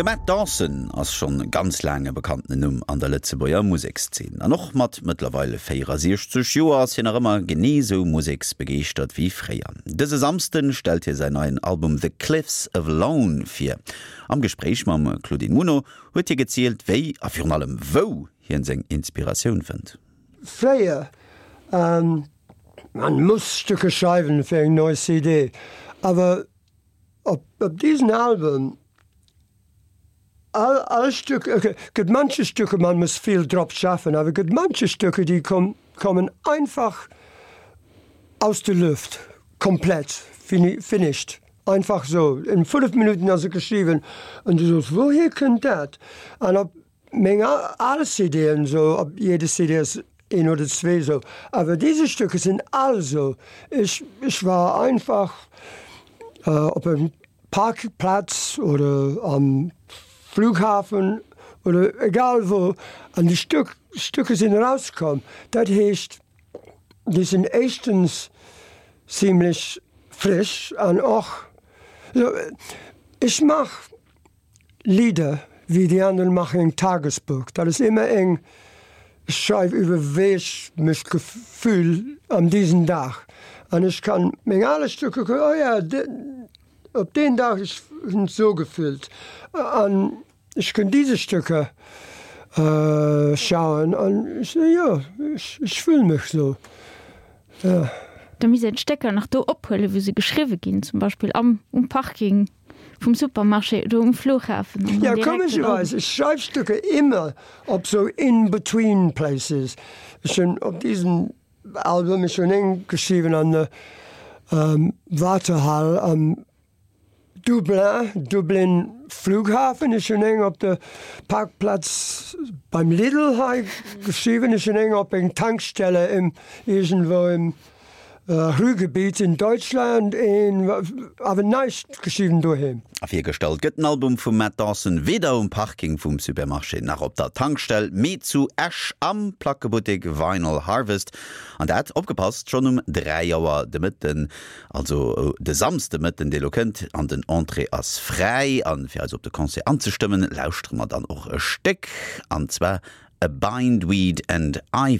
De Matt Dawson ass schonn ganz laang e bekannten Numm an der Lëtzebuerger Musekszeen. An och mat mëttlerweil 64 Joer ass hien nach ëmmer genee sou museksbegeeschtert wéi fréier. Dëse Samsden stellt hie säin neien Album The Cliffs of Lone vir. Am Gespréich mam Claudine Muno huet hie gezielt, wéi a virun allem wou hien seng Inspiratioun fënnt. Fréier, man muss Stücke schreiwen fir eng nei CD, awer op diesen Album, all all Stück, gëtt manche Stücke, man muss vill drop schaffen, awer gëtt manche Stücke, déi kommen einfach aus der Luft, komplett finished, einfach sou, in 5 Minuten ass et geschriwwen an du soos, wouhier kënnt dat? An op Meng al CD'en sou, op jede CD ass een oder zwee sou, awer dese Stücke sinn all sou. Ech ech war einfach op engem Parkplatz oder am Flughafen oder egal wou an déi Stück Stücke sinn erauskomm. Dat heescht, déi sinn éischtens zimlech frisch an och sou, ech mach Lieder wéi die anderen machen eng Tagesbuch. Dat ass ëmmer eng, ech schreiw iwwer wéi ech mech gefühl an diesen Dag. An ech kann meng ale Stücke kucken, oh ja, op deen Dag ech hunn sou gefüllt. An ech kënn diese Stücke schauen an ech soen, jo, ech fühl mech sou, jo. Da misst een d'Stécker nach do ophuelen, wou se geschriwwe ginn, zum Beispill am um Parking. Vum Supermarché oder um Flughafen an dann Ja, komescherweis, ech schreif Stücke immer op sou in-between places. Ech hunn op diesem Album, ech hunn eng geschriwwen an der Wartehal am Dublin, Dublin Flughafen, ech hunn eng op der Parkplatz beim Lidl hei geschriwwen, ech hunn eng op eng Tankstelle im iergendwou im Ruhrgebiet in Deutschland een awer näischt geschriwwen doheem. A virgestallt gëtt den Album vum Matt Dawson weder um Parking vum Supermarché nach op der Tankstell, mee zu Esch am Plackebuttek Vinyl Harvest. An dat, opgepasst, schonn um 3 Auer de Mëtten, also de Samsdemëtten, dee lo kënnt. An den Entrée ass fräi. A fir eis op de Concert anzestëmmen, lauschtere mer dann och e Stéck, an zwar A Bindweed and Ivy.